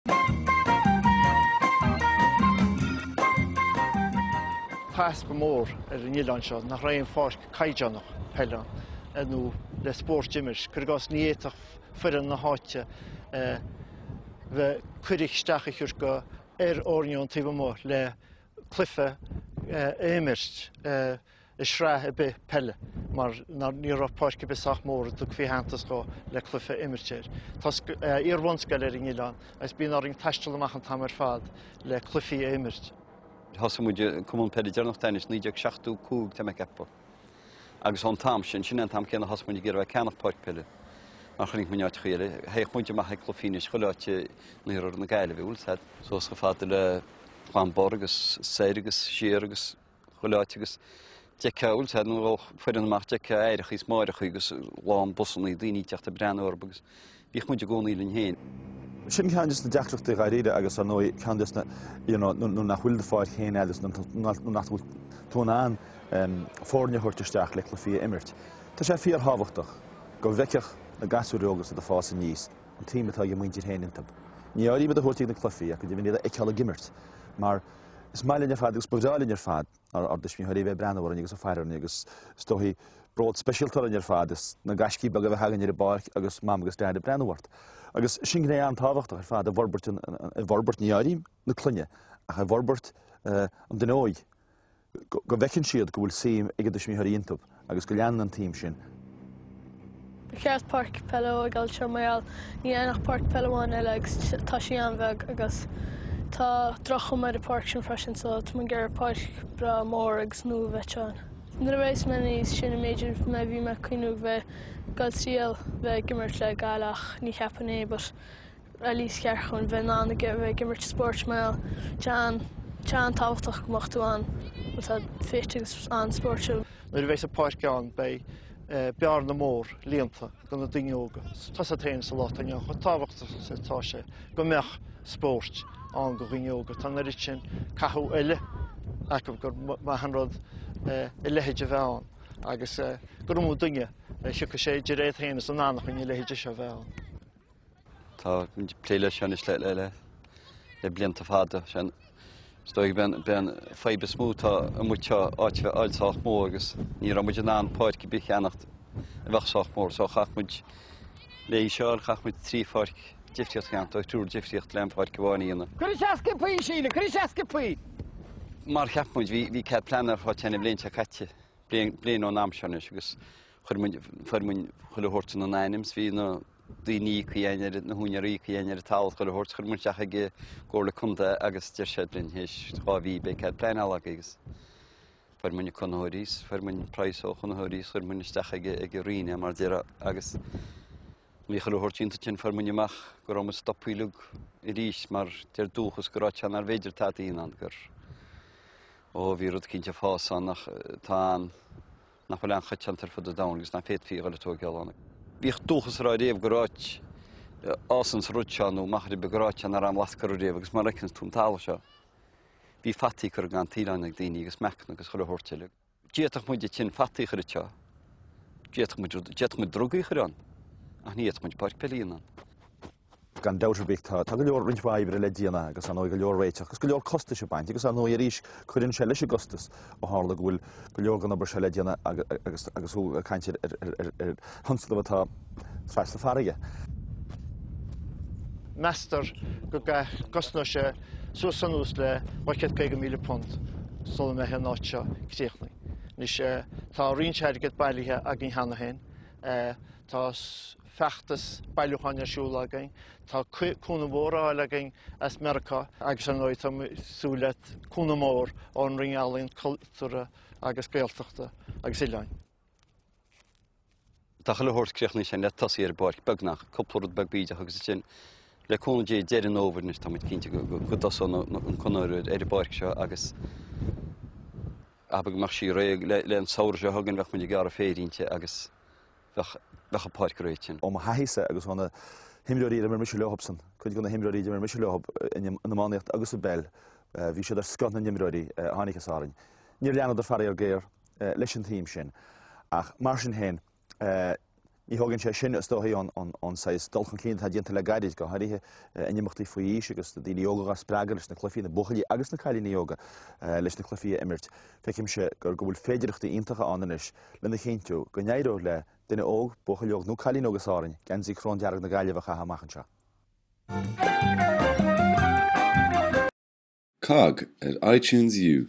Tá easpa mór ar an oileán seo nach raibh aon pháirc caighdeánach peile ann nó le spórt a imirt. Cuir i gcás ní fhéadfadh foireann na háite bheith cuireadh isteach a thabhairt go ar fhoirne ón taobh amuigh le cluiche a imirt. i sraith ar bith peile mar ní raibh páirc ar bith sách mór a dtugfaí aitheantas dhó le cluiche a imirt air. Tá iar-bhunscoil ar an oileán agus bíonn orainn taisteal amach an t-am ar fad le cluichí a imirt. Thosaigh muid an Cumann Peile deireanach de anois 1975 tá mé ag ceapadh. Agus ón t-am sin, sin é an t-am céanna a thosaigh muid ag iarraidh bheith ag ceannach páirc peile mar chonaic muid in áiteachaí eile. Théadh muid amach ag cluichí anois chuile áit in iarthar na Gaillimhe, bhfuil 'fhios a'd. Suas chomh fada le Gleann Bor agus soir agus siar agus chuile áit agus d'fheicfeá, bhfuil 'fhios a'd, nuair a ghabhadh foireann amach d'fheicfeá aithreachaí is máithreachaí agus lán busannaí daoine ag teacht ag breathnú orthu agus bhíodh muid i gcónaí linn féin. Sin ceann des na deacrachtaí dháiríre agus ar ndóigh ceann des na, you know, nuair nach bhfuil do pháirc féin agat nó nach bhfuil tú in ann foirne a thabhairt isteach le cluichí a imirt. Tá sé fíorthábhachtach go bhfeicfeadh na gasúir óga is iad ag fás aníos an tsuim atá ag a muintir féin iontu. Ní áirím iad a thabhairt ag na cluichí ach go deimhin iad a fheiceáil ag imirt mar Is maith linn ar fad agus ba bhreá linn ar fad ár dtuismitheoirí a bheith ag breathnú orainn agus ag faire orainn agus is dóichí bród speisialta orainn ar fad is na gaiscí beaga a bheith againn ar an bpáirc agus Mam agus Dad ag breathnú ort. Agus sin gné an-tábhachtach ar fad i bhforbairt, i bhforbairt, ní áirím na clainne, ach i bhforbairt an duine óig. Go bhfeiceann siad go bhfuil suim ag a dtuismitheoirí iontu agus go leanann an tsuim sin. Ba cheart páirc peile a thógáil anseo mar gheall níl ann ach páirc peile amháin eile agus tá sí an-bheag agus tá droch-chuma ar an pháirc sin freisin so tá muid ag iarraidh páirc breá mór agus nua a bheith ann. Nuair a bheas mé níos sine b'fhéidir mé bhí mé ag cuimhniú bheith ag dul triail bheith ag imirt le Gaillimh ach ní cheapfainn é but at least cheart chun bheith in ann a bheith ag imirt spóirt mar tá sé an-tábhachtach go mbeadh tú an tá fit agus an-spórtúil. Nuair a bheidh an pháirc ann beidh bearna mór líonta do na daoine óga. Tá 's agat féin sa lá atá inniu ann chomh tábhachtach is atá sé go mbeadh spóirt ann do dhaoine óga. Tá an oiread sin cathú eile acu gur maith an rud a leithéid a bheith ann agus gur iomaí duine a thiocfaidh sé idir iad féin is a n-anachain a leithéide seo a bheith ann. Tá muid ag plé leis seo anois le, le, le, le blianta fada. Sé an, is dóigh b'é an, b'é an fadhb is mó atá amuigh anseo áit a bheith fháil sách mór agus ní raibh muid in ann páirc ar bith a cheannacht a bheadh sách mór so chaith muid léi seo a fháil chaith muid trí pháirc difríocht a cheannacht ó thriúr difríocht le an pháirc amháin a dhéanamh. Cuir isteach sciobthaí, Síle, cuir isteach sciobthaí! Mar cheap muid, bhí, bhí cead pleanála ar fáil an bhliain seo caite, bliain, bliain ón am seo anois agus chuir muid, fuair muid chuile shórt ina n-ainm 's bhí na daoine íoctha againn ar, na húinéirí íoctha againn ar an talamh chuile shórt, chuir muid isteach ag an gComhairle Contae agus deir siad linn théis 2 mhí beidh cead pleanála agaibh agus fuair muid na conraitheoirí 's fuair muid praghas ó chonraitheoirí 's chuir muid isteach ag ag an Roinn é mar déarfá agus bhí chuile shórt déanta ansin fuair muid amach go raibh muid stoptha uilig arís mar deir Dúchas go raibh sé nár bhféidir tada a dhéanamh ann gur ó bhí rud cinnte ag fás ann ach tá an nach bhfuil an-choitianta ar fud an domhain agus nach bhféadfaí a dhul ag tóigeáil ann. Bhíodh Dúchas ag rá riamh gur áit a fhásann an rud seo nó machaire beag gur áit nach raibh aon bhlas curtha riamh agus mar a fheiceanns tú an talamh seo, bhí fataí curtha gan taoileáin ag daoine agus meacanna agus chuile shórt eile. D'fhéadfadh muid ansin fataí a chur anseo, d'fhéadfadh muid, d'fhéadfadh muid drugaí a chur ann, ach ní fhéadfadh muid páirc peile a dhéanamh ann. Gan dabht ar bith, tá go leor, roinnt mhaith oibre le déanamh agus ar ndóigh go leor réiteach agus go leor costais ag baint agus ar ndóigh arís cuireann sé leis an gcostas ó tharla go bhfuil go leor den obair seo le déanamh agus agus thú ag caint ar ar thionscnamh atá trasna farraige. Meastar go gcosnóidh sé suas anuas le £250,000 sula mbeidh an áit seo críochnaithe. Anois tá roinnt airgead bailithe againn cheana féin. Tá feachtas bailiúcháin ar siúl againn, tá cúnamh mór á fháil againn as Meiriceá agus ar ndóigh tá muid ag súil le cúnamh mór ón Roinn Ealaíon, Cultúrtha agus Gaeltachta agus Oileáin. Tá chuile shórt críochnaithe sin le tosaí ar an bpáirc, beagnach, cúpla rud beag bídeach agus ansin le cúnamh Dé deireadh an fhómhair anois tá muid cinnte go dtosóidh an conraitheoir ar an bpáirc seo agus abair go mbeadh sí réidh le an samhradh seo chugainn bheadh muid ag gearradh féir inti agus bheadh bheadh an pháirc réidh ansin. Ó mo thaithísa agus ó na himreoirí ar imir mise leothubsan, cuid de na himreoirí a d'imir mise leothub in iománaíocht agus i bpeil, bhí siad ar scoth na n-imreoirí a tháinig as Árainn. Níor leanadar faraor géar leis an tsuim sin ach mar sin féin. Ní thógann sé sin, is dóigh, ón saghas dul chun cinn atá déanta le gairid, go háirithe in imeachtaí faoi aois agus na daoine óga dhá spreagadh leis na cluichí, na buachaillí agus na cailíní óga leis na cluichí a imirt. Feicimse go bhfuil féidearthachtaí iontacha ann anois lena chinntiú go n-éireoidh le duine óg, buachaill óg nó cailín óg as Árainn, geansaí cróndearg na Gaillimhe a chaitheamh amach anseo. COGG ar iTunes U.